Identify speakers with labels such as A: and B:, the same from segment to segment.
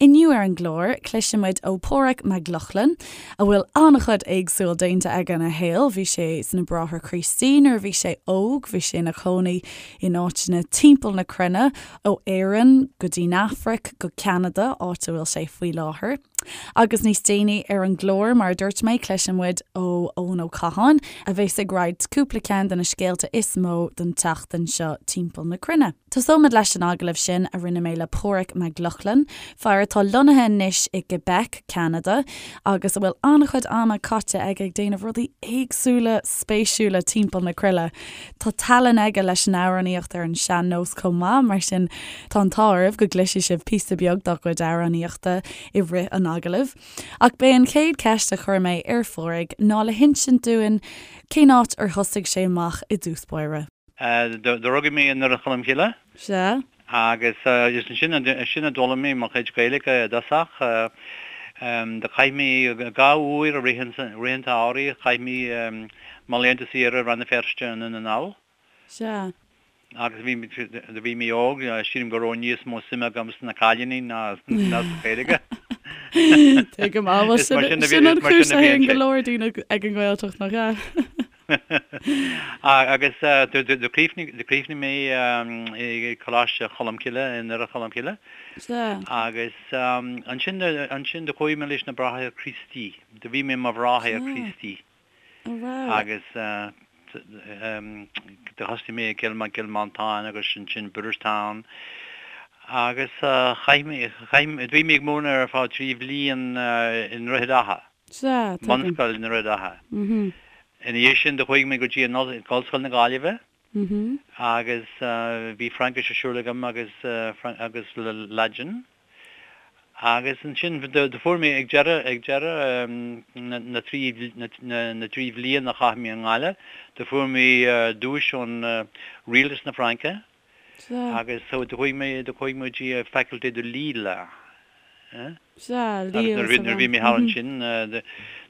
A: Inniu ar an gclár, cloisfidh muid ó Páraic Mac Lochlainn, a bhfuil an-chuid éagsúil déanta aige ina shaol. Bhí sé sna Bráithre Críostaí nuair a bhí sé óg, bhí sé ina chónaí in áiteanna timpeall na cruinne, ó Éirinn go dtí'n Afraic go Ceanada, áit a bhfuil sé faoi láthair. Agus níos déanaí ar an gclár, mar a dúirt mé, cloisfidh muid ó Eoin Ó Catháin, a bheas ag roinnt cúpla ceann de na scéalta is mó don tseachtain seo timpeall na cruinne. Tosóimid leis an agallamh sin a rinne mé le Páraic Mac Lochlainn, fear atá lonnaithe anois i gQuebec, Ceanada, agus a bhfuil an-chuid ama caite aige ag déanamh rudaí éagsúla spéisiúla timpeall na cruinne. Tá tallann aige leis an amhránaíocht ar an sean-nós chomh maith, mar sin tá an t-ádh oraibh go gcloisfidh sibh píosa beag dá chuid amhránaíochta i rith an agallaimh. Ach b'é an chéad cheist a chuir mé ar Pháraic ná le hinsint dúinn cén áit ar thosaigh sé amach i dtús báire.
B: Do rugadh mé i nDoire Cholm Cille.
A: Sea.
B: Agus is ansin ansin a d'fhoghlaim mé mo chuid Gaeilge i dtosach. Do chaith mé 2 uair i rith an rith an tsamhraidh, chaith mé mo laethanta saoire i Rann na Feirste i nDún na nGall.
A: Sea.
B: Agus bhí do bhí mé óg, sílim go raibh níos mó suime agam sna cailíní ná ná sa Ghaeilge.
A: Tuigim, á bhuel sin sin an chúis a théann go leor daoine ag an nGaeltacht, nach ea?
B: Agus do chríochnaigh mé i Coláiste Cholmcille i nDoire Cholmcille. Agus ansin ansin do chuaigh mé leis na Bráithre Críostaí. Do bhí mé i mo bhráthair Críostaí. Agus do thosaigh mé i gCill Cill Mhantáin agus ansin Booterstown. Agus chaith mé chaith bhí mé ag múineadh ar feadh 3 bhliain i nDroichead Átha.
A: Sea, tuigim.
B: Bunscoil i nDroichead Átha. Ina dhiaidh sin do chuaigh mé go dtí an Ollscoil na Gaillimhe agus bhí Fraincis ar siúl agam agus agus Laidin. Agus ansin do fuair mé ag deireadh ag deireadh na dtrí na dtrí bhliain a chaith mé i nGaillimh do fuair mé duais ón Rialtas na Fraince.
A: Sea.
B: Agus so do chuaigh mé, do chuaigh mé go dtí Faculté de Lille.
A: Sea, Lille
B: Agus nuair a bhí mé thall ansin, nuair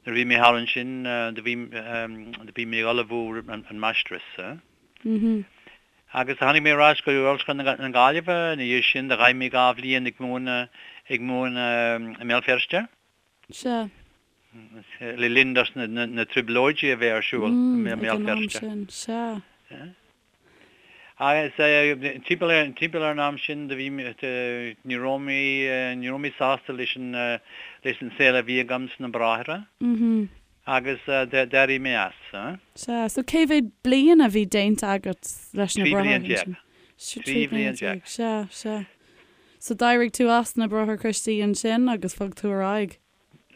B: a bhí mé thall ansin, do bhí, do bhí mé ag ullmhú an máistreas. Agus tháinig mé ar ais go Ollscoil na Gaillimhe ina dhiaidh sin, do chaith mé 2 bhliain ag múineadh, ag múineadh i mBéal Feirste.
A: Sea.
B: Le linn dos na trioblóidí a bheith ar siúl i
A: Ag
B: mBéal
A: an am
B: Feirste.
A: sin, sea.
B: Agus timpeall ar timpeall ar an am sin do bhí ní raibh mé ní raibh mé sásta leis an leis an saol a bhí agam sna Bráithre agus d'éirigh mé as.
A: Sea, so cé mhéad bliain a bhí déanta agat leis na
B: 13
A: Bráithre
B: bliain.
A: ansin?
B: 13 bhliain.
A: Sea, sea. So d'éirigh tú as na Bráithre Críostaí ansin agus bhog tú ar aghaidh?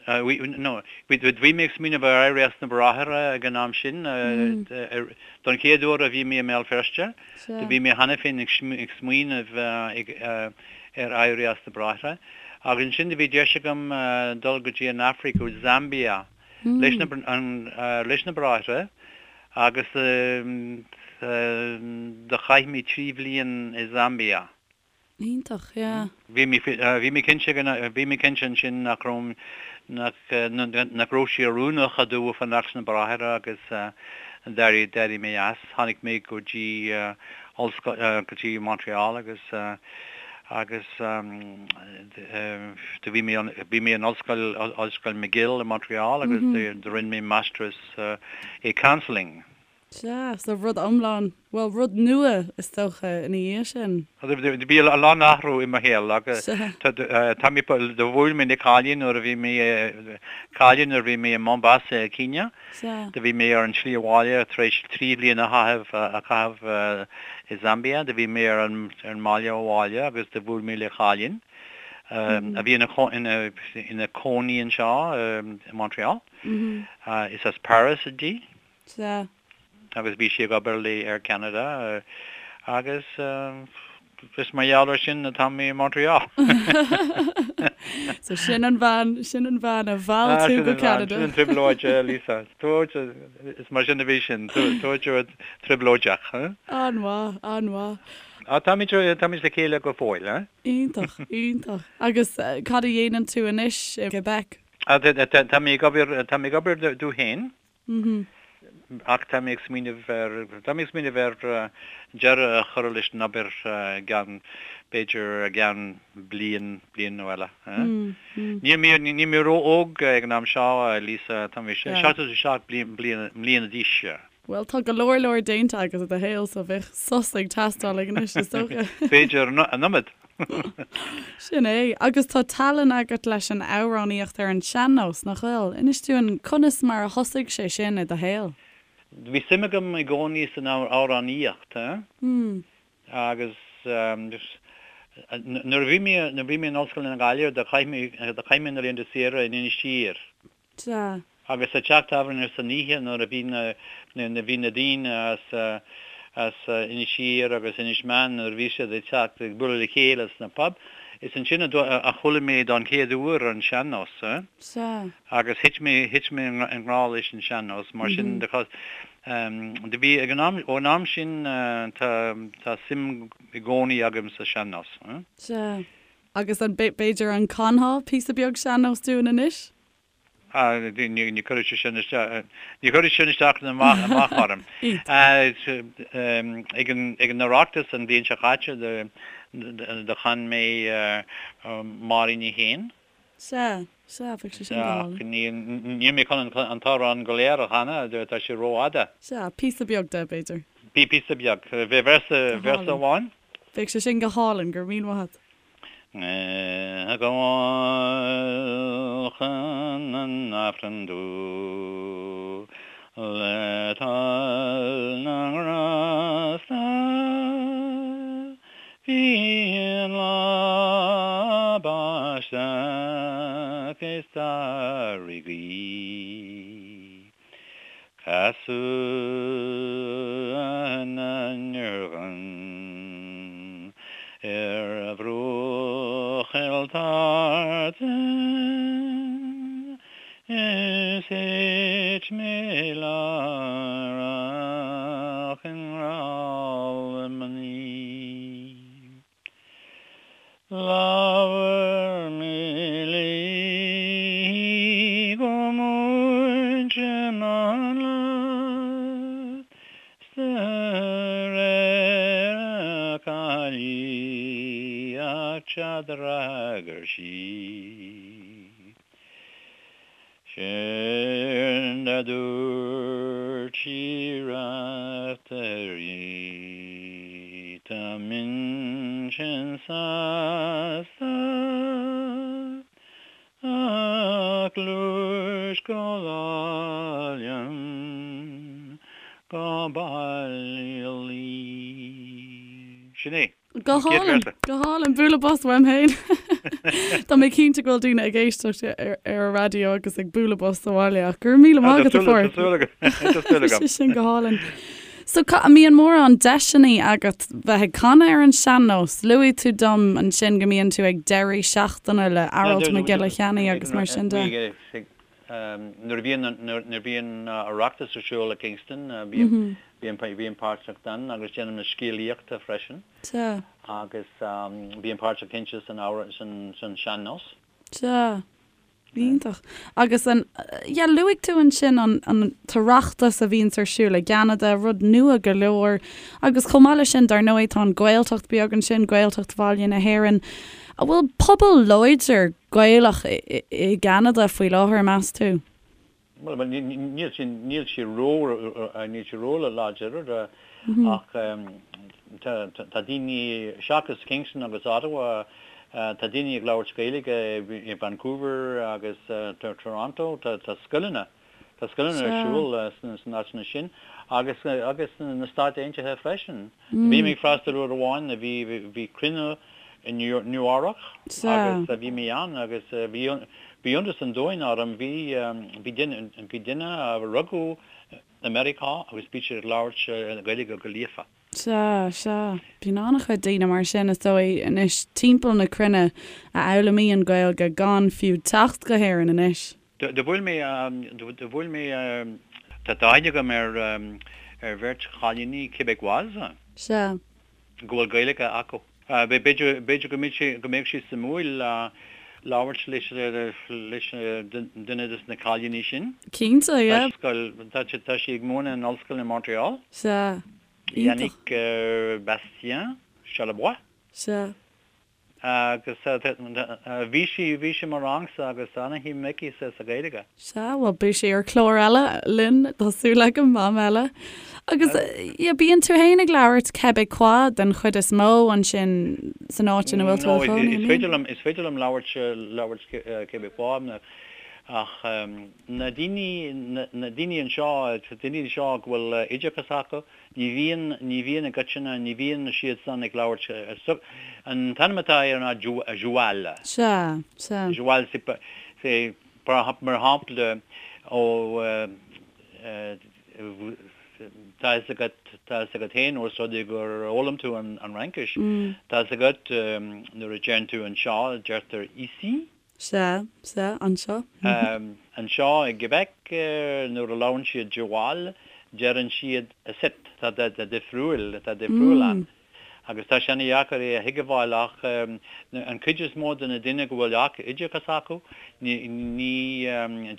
B: No, bhí mé ag smaoineamh ar éirí as na Bráithre ag an am sin. Don chéad uair a bhí mé i mBéal Feirste, do bhí mé cheana féin ag smaoineamh ar éirí as na Bráithre. Agus ansin do bhí deis agam dul go dtí an Afraic, go Zambia, leis na Bráithre agus do chaith mé 3 bhliain i Zambia.
A: Iontach, yeah.
B: Bhí mé, bhí mé cinnte, bhí mé cinnte ansin nach raibh, nach, nach raibh sé oiriúnach domh fanacht sna Bráithre agus d'éirigh, d'éirigh mé as. Tháinig mé go dtí ollscoil, go dtí Montreal agus, agus do bhí mé, bhí mé in ollscoil, Ollscoil McGill i Montreal agus do rinne mé máistreas i counselling.
A: Sea, so rud iomlán, bhuel, rud nua is dócha ina dhiaidh sin.
B: Bhí a lán athrú i mo shaol agus tá mé, do bhuail mé le cailín nuair a bhí mé, cailín nuair a bhí mé i Mombasa i Kenya.
A: Sea.
B: Do bhí mé ar an tslí abhaile tar éis 3 bhliain a chaitheamh, a chaitheamh i Zambia. Do bhí mé ar an, ar an mbealach abhaile agus do bhuail mé le cailín a bhí ina, ina, ina cónaí anseo i Montreal. Is as Paris di.
A: Sea.
B: Agus bhí sí ag obair le Air Canada agus is mar gheall ar sin atá mé i Montreal.
A: So sin an bhean, sin an bhean a mheall tú go Ceanada.
B: Sin an trioblóid, Lisa. Is mar sin a bhí sin, trioblóideach.
A: An-mhaith, an-mhaith.
B: Táimid, táimid le chéile go fóill, eh?
A: Iontach, iontach. Agus cad a dhéanann tú anois i gQuebec?
B: Tá mé ag obair, tá mé ag obair domh féin. Ach tá mé ag smaoineamh ar, tá mé ag smaoineamh ar deireadh a chur leis an obair i gceann, b'fhéidir i gceann bliain, bliain nó eile. Níl mé, níl mé ró-óg ag an am seo, Lisa, tá mé 77 bliana d'aois.
A: Bhuel, tá go leor leor déanta agat i do shaol so bheadh sos ag teastáil ag anois, is dócha.
B: B'fhéidir an iomad.
A: Sin é. Agus tá tallann agat leis an amhránaíocht ar an sean-nós, nach bhfuil? Inis dúinn conas mar a thosaigh sé sin i do shaol.
B: Bhí suim agam i gcónaí san amhránaíocht, agus nuair a bhí mé, nuair a bhí mé in Ollscoil na Gaillimhe, do chaith mé, do chaith mé na laethanta saoire in Inis Oírr.
A: Sea.
B: Agus sa teach tábhairne san oíche nuair a bhí na, na, bhí na daoine as, as Inis Oírr agus Inis Meáin nuair a bhí siad ag teacht ag bualadh le chéile sna pub, is ansin a, a chuala mé don chéad uair an sean-nós.
A: Sea.
B: Agus thit mé, thit mé i ngrá leis an sean-nós, mar sin de, do bhí, ag an am, ón am sin tá, tá suim i gcónaí agam sa sean-nós.
A: Sea. Agus an, b'fhéidir an canfá píosa beag sean-nós dúinn anois?
B: Ah, ní chuirfidh sé sin isteach, ní chuirfidh sin isteach ná amach orm. Ag an, ag an Oireachtas an bhliain seo caite do chan mé Máirín Ní Shéan.
A: Sea, sea, bheadh sé sin go
B: hálainn. Níl, níl mé chun an t-amhrán go léir a chanadh, tá sé rófhada.
A: Sea, píosa beag de, b'fhéidir.
B: Píosa beag. Véarsa, véarsa amháin.
A: Bheadh sé sin go hálainn, go raibh míle maith agat.
B: Ag gabháil chun an Aifrinn domh le toil na nGrásta Bhí an lá báisteach is d'ardaigh gaoth. Casadh na ndurgan ar bhruach Chill Tartan is thit mé láithreach i ngrá le mnaoi. Labhair mé léi go múinte mánla 's de réir a caillíochta d'fhreagair sí. Séard a dúirt sí Raiftearaí, Tá m'intinn sásta ach gluais go lá liom go baile luí. Sin é.
A: Go hálainn, go hálainn, bualadh bos uaim féin. Tá mé cinnte go bhfuil daoine ag éisteacht ar an raidió agus ag bualadh bos sa bhaile ach go raibh míle maith agat a Pháraic.
B: Tá súil agam.
A: Sé sin go hálainn. So an mbíonn mórán deiseanna agat bheith ag canadh ar an sean-nós? Luaigh tú dom ansin go mbíonn tú ag deirí seachtaine le Aralt Mac Giolla Cheannaigh agus mar sin
B: de. Nuair a bhíonn nuair a bhíonn Oireachtas ar siúl i Kingston bím bím páirteach ann agus déanaim na scéalaíochta freisin.
A: Sea.
B: Agus bím páirteach cinnte san san san sean-nós.
A: Sea. Iontach. Agus an yeah luaigh tú ansin an an tOireachtas a bhíonns ar siúl i gCeanada, rud nua go leor. Agus chomh maith leis sin dar ndóigh tá an Ghaeltacht beag ansin, Gaeltacht Bhaile na hÉireann. An bhfuil pobal láidir Gaelach i gCeanada faoi láthair, meas tú?
B: Bhuel, níl sé, níl sé ró, níl sé ró-láidir ach tá, tá daoine, seachas Kingston agus Ottawa, tá daoine ag labhairt Gaeilge i Vancouver agus Toronto, tá scoileanna, tá scoileanna ar siúl sna áiteanna sin agus, agus sna Stáit Aontaithe freisin. Bhí mé ag freastal uair amháin, bhí, bhí cruinniú i Nua-Eabhrac agus bhí mé ann agus bhí, bhí iontas an domhain orm, bhí, bhí duine, bhí duine a rugadh i Meiriceá agus bhí siad ag labhairt Gaeilge go líofa.
A: Sea, sea. Bíonn an-chuid daoine mar sin, is dóigh, anois timpeall na cruinne a fhoghlaimíonn Gaeilge gan fiú teacht go hÉirinn anois.
B: Do bhuail mé, do bhuail mé, tá aithne agam ar, ar bheirt chailíní Québécoise.
A: Sea.
B: Go bhfuil Gaeilge acu. B'fhéidir, b'fhéidir go mbeidh sé, go mbeadh sé suimiúil. labhairt leis leis duine des na cailíní sin.
A: Cinnte, yeah.
B: Scoil, tá tá sí ag múineadh in ollscoil i Montreal.
A: Sea.
B: Iontach. Yannick Bastien Charlebois.
A: Sea.
B: Agus bhí sí, bhí sí i mo rangsa agus ana-shuim aici sa Ghaeilge.
A: Sea, bhuel beidh sí ar chlár eile linn, tá súil agam, am eile. Agus yeah, bíonn tú féin ag labhairt Québécois den chuid is mó ansin san áit ina bhfuil tú
B: i do chónaí, an mbíonn? Is féidir liom, is féidir liom labhairt, labhairt Québécois ach na daoine, na daoine anseo, daoine anseo go bhfuil oideachas acu, Ní bhíonn, ní bhíonn i gcoitinne, ní bhíonn siad san ag labhairt, an t-ainm atá air ná
A: Joual. Sea, sea.
B: Joual, c'est, mar shampla, ó, tá fhios agat, tá fhios agat féin ós rud é gur fhoghlaim tú an Fhraincis, tá fhios agat nuair a deireann tú anseo, deirtear ici.
A: Sea, sea, anseo.
B: Anseo i gQuebec, nuair a labhrann siad Joual, deireann siad icitte. Tá difriúil, tá difriúil ann. Agus tá sé ana-dheacair é a thuigbheáil ach an cuid is mó de na daoine go bhfuil oideachas acu, ní, ní,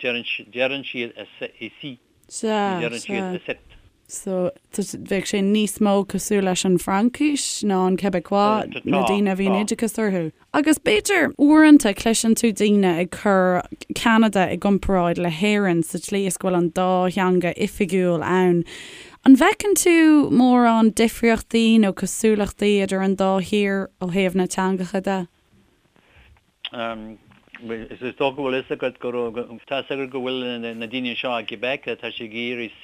B: deireann siad ici.
A: Sea, Ní deireann siad sea. icitte. So, bheadh sé níos mó cosúil leis an Fhraincis ná an Québécois, na daoine a bhíonn oideachas orthu. Agus b'fhéidir, uaireanta, cloiseann tú daoine ag cur Ceanada i gcomparáid le hÉirinn sa tslí is go bhfuil an dá theanga oifigiúil ann. An bhfeiceann tú mórán difríochtaí nó cosúlachtaí idir an dá thír ó thaobh na teangacha de?
B: Is dócha go bhfuil fhios agat go raibh, tá fhios agat go bhfuil na daoine anseo i gQuebec, tá siad ag iarraidh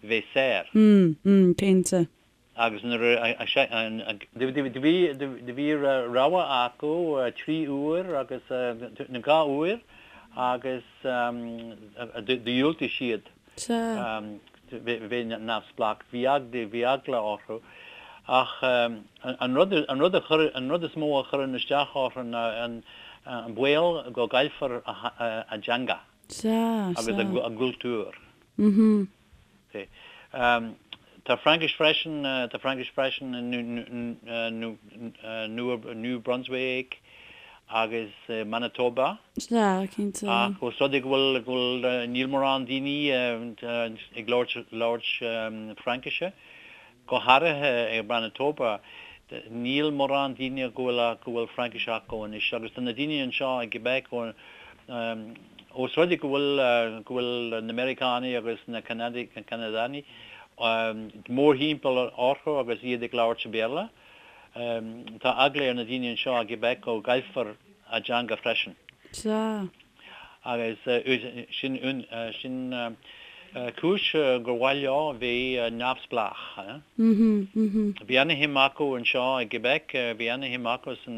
B: bheith saor.
A: Mm, mm, cinnte.
B: Agus nuair a, do bhí, do bhí rogha acu 3 uair agus, nó 2 uair agus do dhiúltaigh siad.
A: Sea.
B: Bheith neamhspleách. Bhí bhí eagla orthu. Ach an rud, an rud a chuir, an rud is mó a chuireann isteach orthu ná an baol go gcaillfear a dteanga
A: Sea,
B: agus a gcultúr. Mhm. Tá Fraincis freisin, tá Fraincis freisin i New Brunswick agus Manitoba.
A: Sea, cinnte.
B: Ach ós rud é go bhfuil, go bhfuil, níl mórán daoine ag labhairt, labhairt Fraincise, go háirithe i Manitoba, níl mórán daoine go bhfuil, go bhfuil Fraincis acu anois. Agus tá na daoine anseo i gQuebec, ós rud é go bhfuil, go bhfuil na Meiriceánaigh agus na Ceanadaigh mórthimpeall orthu agus iad ag labhairt Béarla, Tá eagla ar na daoine anseo i gQuebec go gcaillfear a dteanga freisin.
A: Sea.
B: Agus sin sin cúis gur mhaith leo bheith neamhspleách. Bhí ana-shuim acu anseo i gQuebec, bhí ana-shuim acu san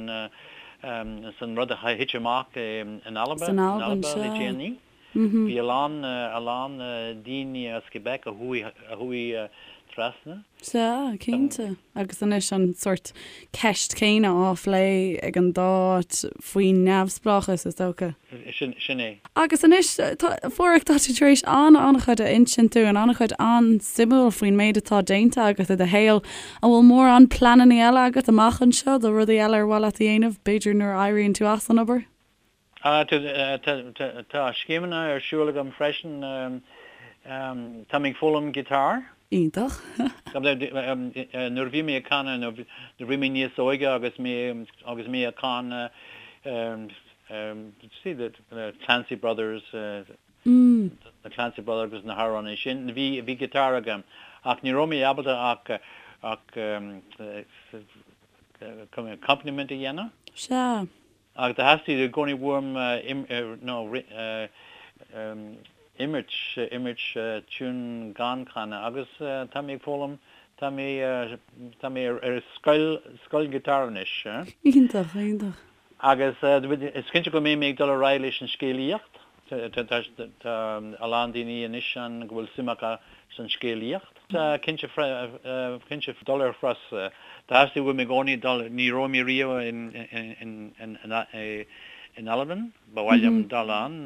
B: san rud a thit amach in Alba,
A: San Albain,
B: le déanaí. Bhí a lán, a lán daoine as Quebec a chuaigh, a chuaigh trasna.
A: Sea, cinnte. Agus anois an sórt ceist céanna á phlé ag an dá áit faoin neamhspleáchas, is dócha.
B: Sin, sin é.
A: Agus anois, tá, a Pháraic, tá tú tar éis an-an-chuid a insint dúinn, an-chuid an-suimiúil faoin méid atá déanta agat i do shaol. An bhfuil mórán pleananna eile agat amach anseo do rudaí eile ar mhaith leat a dhéanamh, b'fhéidir nuair a éiríonn tú as an obair?
B: Tá scéimeanna ar siúl agam freisin. Tá mé ag foghlaim guitar.
A: Iontach.
B: Nuair a bhí mé ag canadh, nuair a bhí mé níos óige agus mé agus mé ag canadh see the Clancy Brothers, na Clancy Brothers agus na hamhráin sin, bhí bhí guitar agam ach ní raibh mé ábalta ach ach accompaniment a dhéanamh.
A: Sea.
B: Ach do theastaigh i gcónaí uaim nó imirt, imirt tiún gan canadh agus tá mé ag foghlaim, tá mé, tá mé ar scoil, scoil guitar anois.
A: Iontach, iontach.
B: Agus is cinnte go mbeidh mé ag dul ar aghaidh leis an scéalaíocht. Tá a lán daoine anois ann go bhfuil suim acu san scéalaíocht. Cinnte, cinnte dul ar thuras. Theastaigh uaim i gcónaí dul, ní raibh mé riamh in Albain, ba mhaith liom dul ann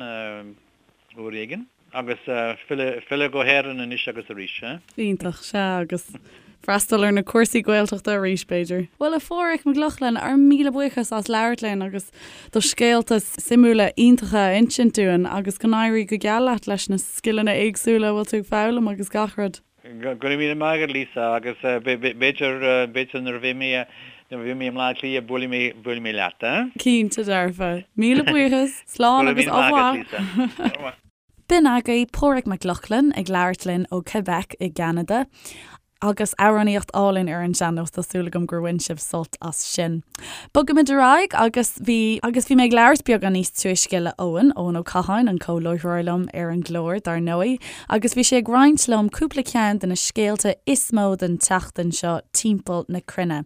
B: uair éigin. Agus filleadh go hÉirinn anois agus arís.
A: Iontach, sea, agus. Freastal ar na cúrsaí Gaeltachta arís, b'fhéidir. Bhuel, a Pháraic Mac Lochlainn, ár míle buíochas as labhairt linn agus do scéalta suimiúla iontacha a insint dúinn agus go n-éirí go geal leat leis na scileanna éagsúla a bhfuil tú ag foghlaim agus gach rud.
B: Go raibh míle maith agat, Lisa, agus b'fhéidir, b'fhéidir nuair a bheidh mé, nuair a bheidh mé i mBleá Cliath buailfidh mé, buailfidh mé leat, eh?
A: Cinnte dearfa. Míle buíochas. Slán agus au revoir. B'in agaibh Páraic Mac Lochlainn ag labhairt linn ó Quebec i gCeanada. Agus amhránaíocht álainn ar an sean-nós, tá súil agam gur bhain sibh sult as sin. Bogaimid ar aghaidh agus bhí agus bhí mé ag labhairt beagán níos túisce le Eoin, Eoin Ó Catháin, an comh-láithreoir liom ar an gclár, dar ndóigh, agus bhí sé ag roinnt liom cúpla ceann de na scéalta is mó den tseachtain seo timpeall na cruinne.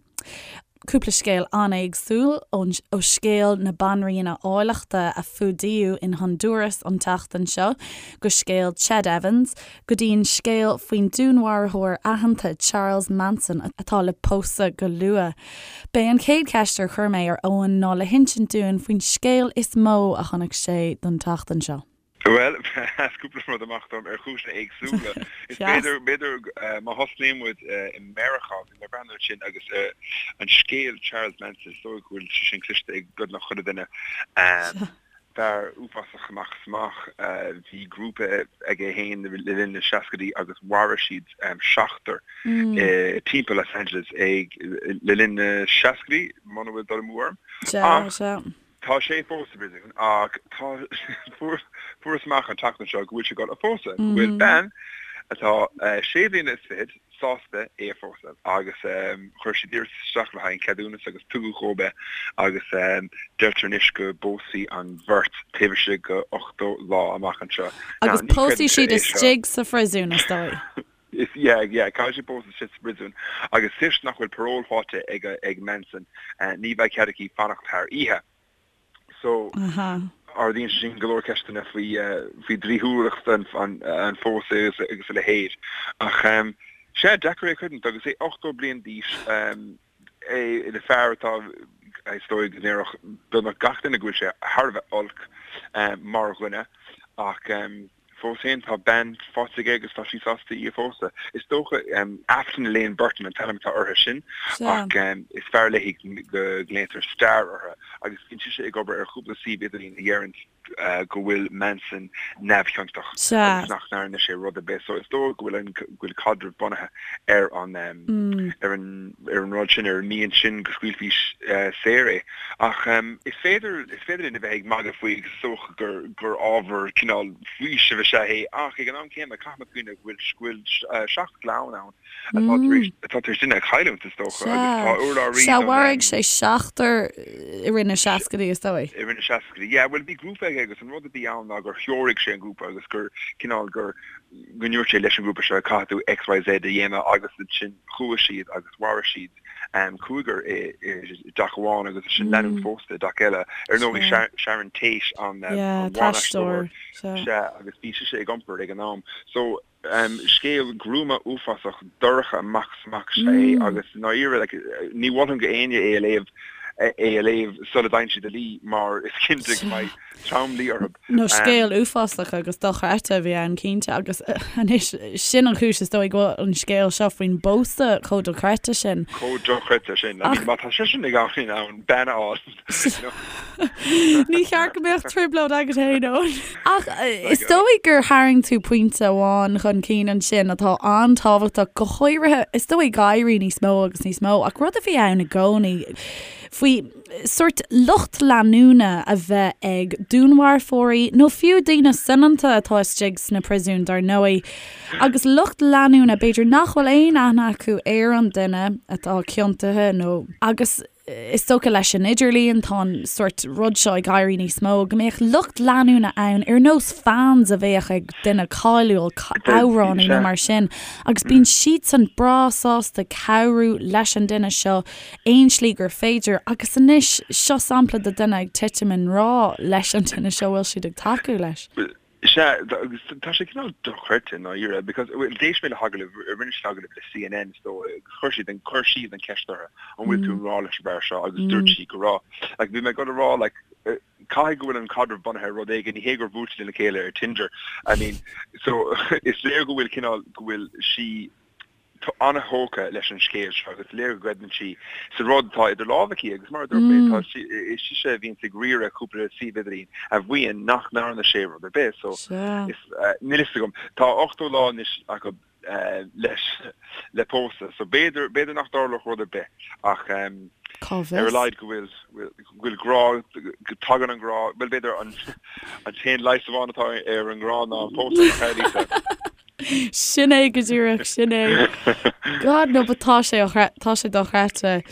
A: Cúpla scéal an-éagsúil, ó scéal na banríona áilleachta a fuadaíodh in Honduras an tseachtain seo, go scéal Ched Evans, go dtí an scéal faoin dúnmharfóir aitheanta Charles Manson atá le pósadh go luath. B'é an chéad cheist ar chuir mé ar Eoin ná le hinsint dúinn faoin scéal is mó a chonaic sé don tseachtain seo.
C: Bhuel, sheas cúpla rud amach dom ar chúiseanna éagsúla. Is b'fhéidir, b'fhéidir má thosnaíonn muid i Meiriceá, bhí mé ag breathnú ansin agus an scéal Charles Manson, is dóigh go bhfuil sé sin cloiste ag beagnach chuile duine. Fear uafásach amach is amach. Bhí grúpa aige féin le linn na seascaidí agus mharaigh siad seachtar timpeall Los Angeles ag le linn na seascaidí, muna bhfuil dul amú orm. Ach Tá sé fós sa bpríosún ach tá fuarthas amach an tseachtain seo go bhfuil sé ag dul a phósadh, go bhfuil bean atá sé bliana is fichead sásta é a phósadh agus chuir siad iarratas isteach le haghaidh an ceadúnas agus tugadh dhóibh é agus deirtear anois go bpósfaidh an bheirt taobh istigh de 80 lá amach anseo.
A: Agus pósfaidh siad istigh sa phríosún is dóigh.
C: Is yeah, yeah, caithfidh siad pósadh istigh sa bpríosún agus toisc nach bhfuil parole faighte ag ag Manson, ní bheidh cead aici fanacht thar oíche. So, ardaíonn sé sin go leor ceisteanna faoi faoi dlíthiúlacht an an an phósadh agus agus a leithéid. Ach sea, deacair é a chreidiúint agus é 80 bliain d'aois, é ina fear atá, is dóigh go ndéarfadh beagnach gach duine go bhfuil sé thar a bheith olc mar dhuine ach Fós féin, tá bean faighte aige agus tá sí sásta í a phósadh. Is dócha, Afton Elaine Burton an t-ainm atá uirthi sin, ach is fearr léi go nglaotar Star uirthi, agus bíonn sise ag obair ar chúpla suíomh idirlín a dheireann go bhfuil Manson neamhchiontach agus nach ndearna sé rud ar bith. So is dóigh go bhfuil an go bhfuil caidreamh bunaithe ar an ar an ar an rud sin, ar an mian sin go scaoilfí saor é. Ach is féidir is féidir linn a bheith ag magadh faoi agus is dócha gur gur ábhar cineál faoisimh is ea é ach ag an am céanna caithfimid cuimhneamh go bhfuil go bhfuil seacht gclann ann atá tar éis atá tar éis duine a chailliúint is dócha agus tá
A: urlabhraí Sea, mharaigh sé seachtar i rith na seascaidí is dóigh.
C: I rith na seascaidí, yeah. Bhuel bhí grúpa aige agus an rud a bhí ann ná gur threoraigh sé an grúpa agus gur cineál gur go ndúirt sé leis an ngrúpa seo caithfidh tú XYZ a dhéanamh agus ansin chuaigh siad agus mharaigh siad cúigear i dteach amháin agus ansin lánúin phósta i dteach eile. Ar ndóigh Sharon Tate an
A: ban-aisteoir
C: sea agus bhí sise ag iompar ag an am. So scéal gruama uafásach dorcha amach is amach is ea é agus i ndáiríre like ní mholfainn go éinne é a léamh é a léamh sula dtéann siad a luí mar is cinnte go mbeidh tromluí
A: orthu. Nó scéal uafásach agus dochreidte a bhí ann cinnte agus anois sin an chúis is dóigh go bhfuil an scéal seo faoin bpósadh chomh dochreidte sin.
C: Chomh dochreidte sin. I mean má tá seisean ag in ann bean a fháil.
A: Ní cheart go mbeadh trioblóid agat féin Eoin. Ach is dóigh gur tharraing tú pointe amháin chun cinn ansin atá an-tábhachtach, go háirithe is dóigh ag éirí níos mó agus níos mó ach rud a bhí ann i gcónaí faoi sórt lucht leanúna a bheith ag dúnmharfóirí nó fiú daoine soineanta atá istigh sna príosúin dar ndóigh agus lucht leanúna b'fhéidir nach bhfuil aon aithne acu ar an duine atá ciontaithe nó agus is dócha leis an idirlíon tá an sórt rud seo ag éirí níos mó, go mbeadh lucht leanúna ann ar nós fans a bheadh ag duine cáiliúil, amhránaí nó mar sin agus bíonn siadsan breá sásta cabhrú leis an duine seo aon slí gur féidir agus anois seo sampla de duine ag titim i ngrá leis an duine seo bhfuil siad ag tacú leis.
C: Sea, agus tá sé cineál dochreidte i ndáiríre, because, bhuel, d'éist mé le hagallamh, rinne siad agallamh le CNN is dóigh, agus chuir siad an, chuir siad an ceist uirthi, an bhfuil tú i ngrá leis an bhfear seo, agus dúirt sí go raibh. Like, bhí mé ag dul a rá, like, caithfidh go bhfuil an caidreamh bunaithe ar rud éigin, ní hé gur bhuail siad lena chéile ar Tinder, I mean, so, is léir go bhfuil cineál, go bhfuil sí. An-thógtha leis an scéal seo agus is léir go gcreideann sí sa rud atá idir lámha aici agus mar a dúirt mé, tá sí, is sise a bhíonns ag riaradh cúpla suíomh idirlín a mhaíonn nach ndearna sé rud ar bith so is, níl fhios agam. Tá 80 lá anois acu leis le pósadh so b'fhéidir, b'fhéidir nach dtarlódh rud ar bith ach
A: Cá
C: ar a
A: bhfios?
C: laghad go bhfuil, go bhfuil grá, go dtagann an grá, bhuel b'fhéidir an an t-aon leigheas amháin atá ar an ngrá ná an pósadh, nach ea Lisa?
A: Sin é go díreach, sin é. God no, but tá sé tá sé dochreidte.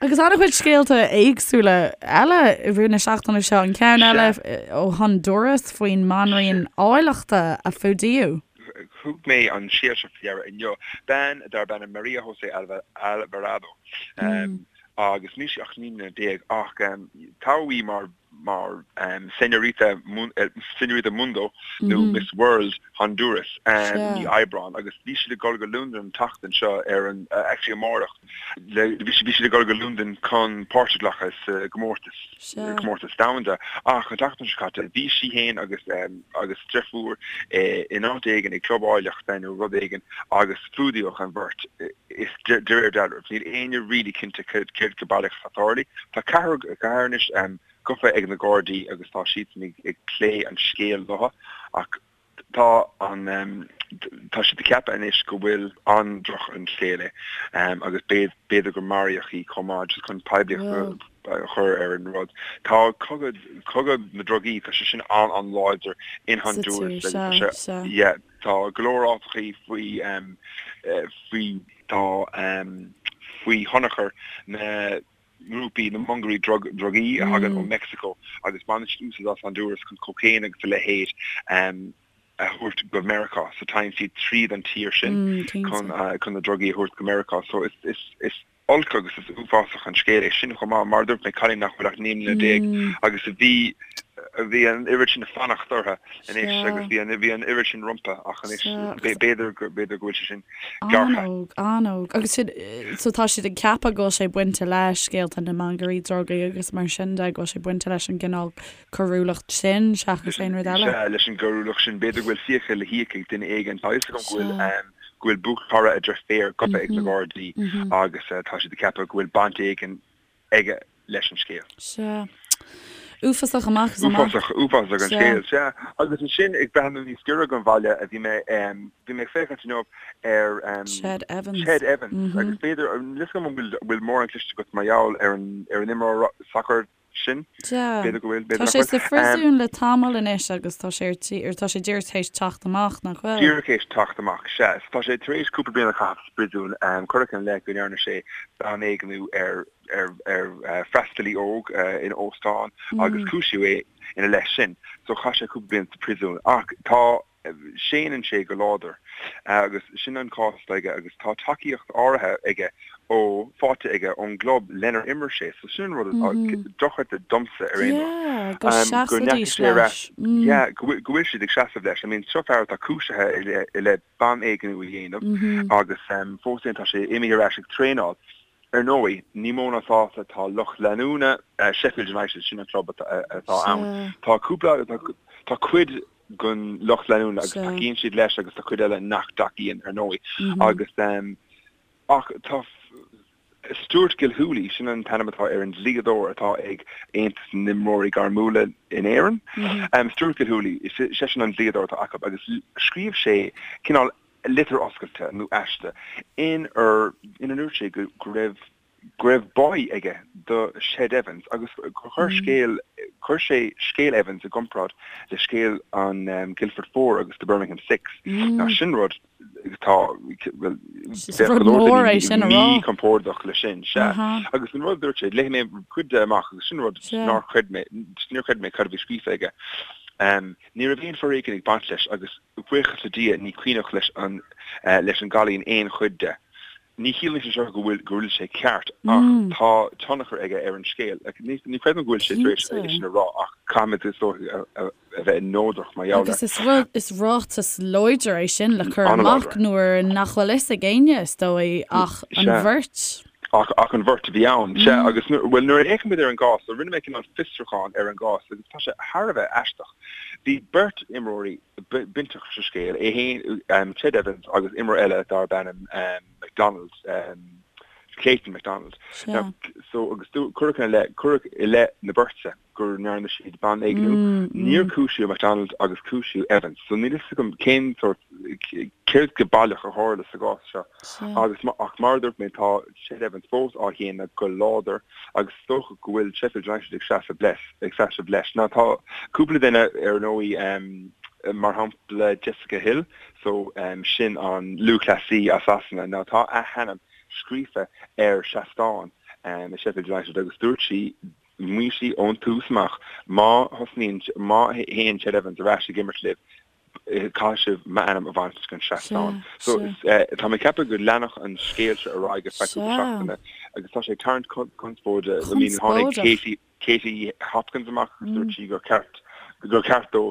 A: Agus an-chuid scéalta éagsúla eile i rith na seachtaine seo, an ceann eile ó Honduras faoin mbanríon áilleachta a fuadaíodh.
C: Thug mé an scéal seo faoi deara inniu. Bean darb ainm Maria José Alvarado agus níl sí ach 19 mbliana ach toghadh í mar mar Señorita Señorita Mundo nó Miss World Honduras i mí Aibreán agus bhí siad ag dul go Londain an tseachtain seo ar an actually amárach bhí siad ag dul go Londain chun páirt a ghlacadh sa gcomórtas comórtas domhanda ach an tseachtain seo caite bhí sí féin agus agus deirfiúr in áit éigin ag club áilleachta nó rud éigin agus fuadaíodh an bheirt is de réir dealraimh. Níl éinne really cinnte céard go baileach atá tarlaithe. Tá ceathrar ceathrar anois gafa ag na Gardaí agus tá siadsan ag plé an scéil leo ach tá an tá siad ag ceapadh anois go bhfuil an-droch an scéal é agus b'fhéidir gur maraíodh í chomh maith just chun poiblíocht a chur ar an rud. Tá cogadh cogadh na drugaí tá sé sin an-an-láidir in Honduras agus tá sé yeah Tá go leor áiteachaí faoi faoi tá faoi thionchar na ngrúpaí, na mongairí drugaí a thagann ó Meicsiceo agus baineann siad úsáid as Honduras chun cocaine agus a leithéid a thabhairt go Meiriceá. So téann siad tríd an tír sin chun chun na drugaí a thabhairt go Meiriceá. So is is olc agus is uafásach an scéal é sin chomh maith. Mar a dúirt mé, cailín nach bhfuil ach 19 mbliana agus a bhí, a bhí an oiread sin fanacht orthu anois agus bhí an, bhí an oiread sin rompu ach anois b'fhéidir go, b'fhéidir go bhfuil sé sin
A: gearrtha. An-óg, an-óg. Agus sin, so tá siad ag ceapadh go bhfuil sé bainte le scéalta na mangairí drugaí agus mar sin de, go bhfuil sé bainte leis an gcineál coiriúlacht sin seachas aon rud eile.
C: Sea, leis an gcoiriúlacht sin. B'fhéidir go bhfuil fiacha le híoc ag duine éigin. Tá a fhios agam go bhfuil go bhfuil buachaill, a dheirféar gafa ag na Gardaí agus tá siad ag ceapadh go bhfuil baint éigin aige leis an scéal.
A: Sea. Uafásach amach is amach.
C: Uafásach, uafásach an scéal, sea. Agus ansin ag breathnú níos giorra don bhaile a bhí mé, bhí mé ag féachaint inniu ar
A: Ched Evans.
C: Ched Evans agus b'fhéidir, níl a fhios agam an bhfuil mórán cloiste agat mar gheall ar an ar an imreoir sacair sin.
A: Sea.
C: B'fhéidir go bhfuil, b'fhéidir
A: Tá
C: nach
A: sé
C: bhfuil.
A: sa phríosún le tamall anois agus tá sé ar tí, ar tá sé díreach théis teacht amach, nach bhfuil?
C: Díreach théis teacht amach, sea. So tá sé tar éis cúpla bliain a chaitheamh sa bpríosún. Cuireadh ina leith go ndearna sé banéigniú ar, ar, ar freastalaí óg in óstán agus cúisíodh é ina leith sin. So chaith sé cúpla bliain sa phríosún. Ach tá. Séanann sé go láidir agus sin an cás atá aige agus tá tacaíocht áirithe aige ó, faighte aige ón gclub lenar imir sé. So sin an rud atá dochreidte domsa ar aon
A: nós. Go seasfaidís leis.
C: Yeah, go bhfuil siad ag seasamh leis. I mean, seo fear atá cúisithe i leith banéigniú a dhéanamh agus fós féin tá sé imithe ar ais ag traenáil. Ar ndóigh, ní mó ná sásta atá lucht leanúna Sheffield United, sin an club atá ann. Tá cúpla, tá cuid den lucht leanúna agus tacaíonn siad leis agus tá cuid eile nach dtacaíonn, ar ndóigh. Agus ach tá Stuart Gilhooly, sin an t-ainm atá ar an dlíodóir atá ag Aontas na nImreoirí Gairmiúla in Éirinn, Stuart Gilhooly, seisean an dlíodóir atá acu agus scríobh sé cineál litir oscailte nó aiste inar ina ndúirt sé go raibh go raibh báí aige do Ched Evans agus gur chuir scéal chuir sé scéal Evans i gcomparáid le scéal an Guildford Four agus the Birmingham Six. Now sin rud tá bhuel
A: bheadh go leor daoine
C: míchompordach leis sin, sea. Agus an rud a dúirt sé, léifidh mé cuid de amach agus sin rud nár chreid mé, níor chreid mé cad a bhí scríofa aige. Ní raibh aon foréigean ag baint leis agus buíochas le Dia ní cuimhneach leis an leis an gcailín aon chuid de. Ní chiallaíonn sé seo go bhfuil go bhfuil sé ceart ach tá tionchar aige ar an scéal. Ní ní chreidim go bhfuil sé tar éis é sin a rá ach caithfimid is dóigh a a bheith neodrach mar gheall air.
A: Agus is rud is ráiteas láidir é sin le cur amach nuair nach bhfuil fhios ag éinne is dóigh ach an bheirt.
C: Ach ach an bheirt a bhí ann. Sea agus nuair bhuel nuair a fhéachaimid ar an gcás so rinne mé cineál fiosrúchán ar an gcás agus tá sé thar a bheith aisteach. Bhí beirt imreoirí. bainteach sa scéal, é féin, Ched Evans agus imreoir eile darb ainm McDonald, Clayton McDonald. Now, so agus cuireadh ina leith, cuireadh i leith na beirte go ndearna siad banéigniú. Níor cúisíodh McDonald agus cúisíodh Evans. So níl fhios agam cén sórt, céard go baileach a tharla sa gcás seo. Agus ach mar a dúirt mé tá Ched Evans fós á shéanadh go láidir agus is dócha go bhfuil Sheffield United ag seasamh leis, ag seasamh leis. Now tá cúpla duine ar ndóigh, mar shampla Jessica Hill, so sin an lúthchleasaí as Sasana. Now tá a hainm scríofa ar seastán i Sheffield United agus dúirt sí, mhaígh sí ón tús amach, má thosnaíonn, má théann Ched Evans ar ais ag imirt libh, caithfidh sibh m'ainm a bhaint den seastán. So tá mé ag ceapadh go leanfadh an scéal seo ar aghaidh ar feadh cúpla seachtaine agus tá sé ag tarraingt conspóide. I mean tháinig Katie Katie Hopkins amach agus dúirt sí gur ceart gur ceart dó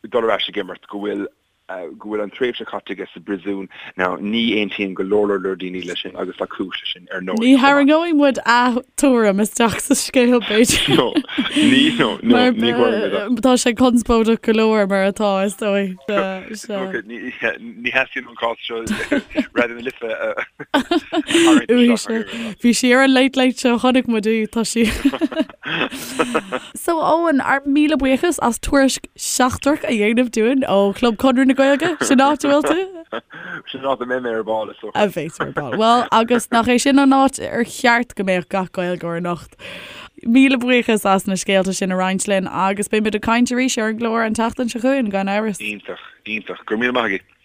C: dul ar ais ag imirt, go bhfuil go bhfuil an tréimhse caite aige sa bpríosún. Now ní aontaíonn go leor leor leor daoine leis sin agus tá cúis leis sin ar ndóigh
A: Ní chomh maith. tharraingeoidh muid a tuairim isteach sa scéal b'fhéidir.
C: No, ní, no, no, Mar ní tharraingeoidh muid
A: é. tá sé conspóideach go leor mar atá is dóigh.
C: Sea. Ok, ní, ní theastaíonn ón cás seo Raidió na Life a tharraingt
A: Uaidh isteach mar sin. Bhí sí ar an Late Late Show, chonaic muid í, tá sí. So Eoin, ár míle buíochas as tuairisc seachtrach a dhéanamh dúinn ó Chlub Chonradh na Gaeilge. Sin áit a bhfuil tú?
C: Sin áit a mbeidh mé ar ball is
A: dócha. A bheidh tú ar ball. Bhuel, agus nach é sin an áit ar cheart go mbeadh gach Gaeilgeoir anocht. Míle buíochas as na scéalta sin a roinnt linn agus beidh muid ag caint arís ar an gclár an tseachtain seo chugainn, gan amhras.
C: Iontach, iontach. Go raibh míle maith agat.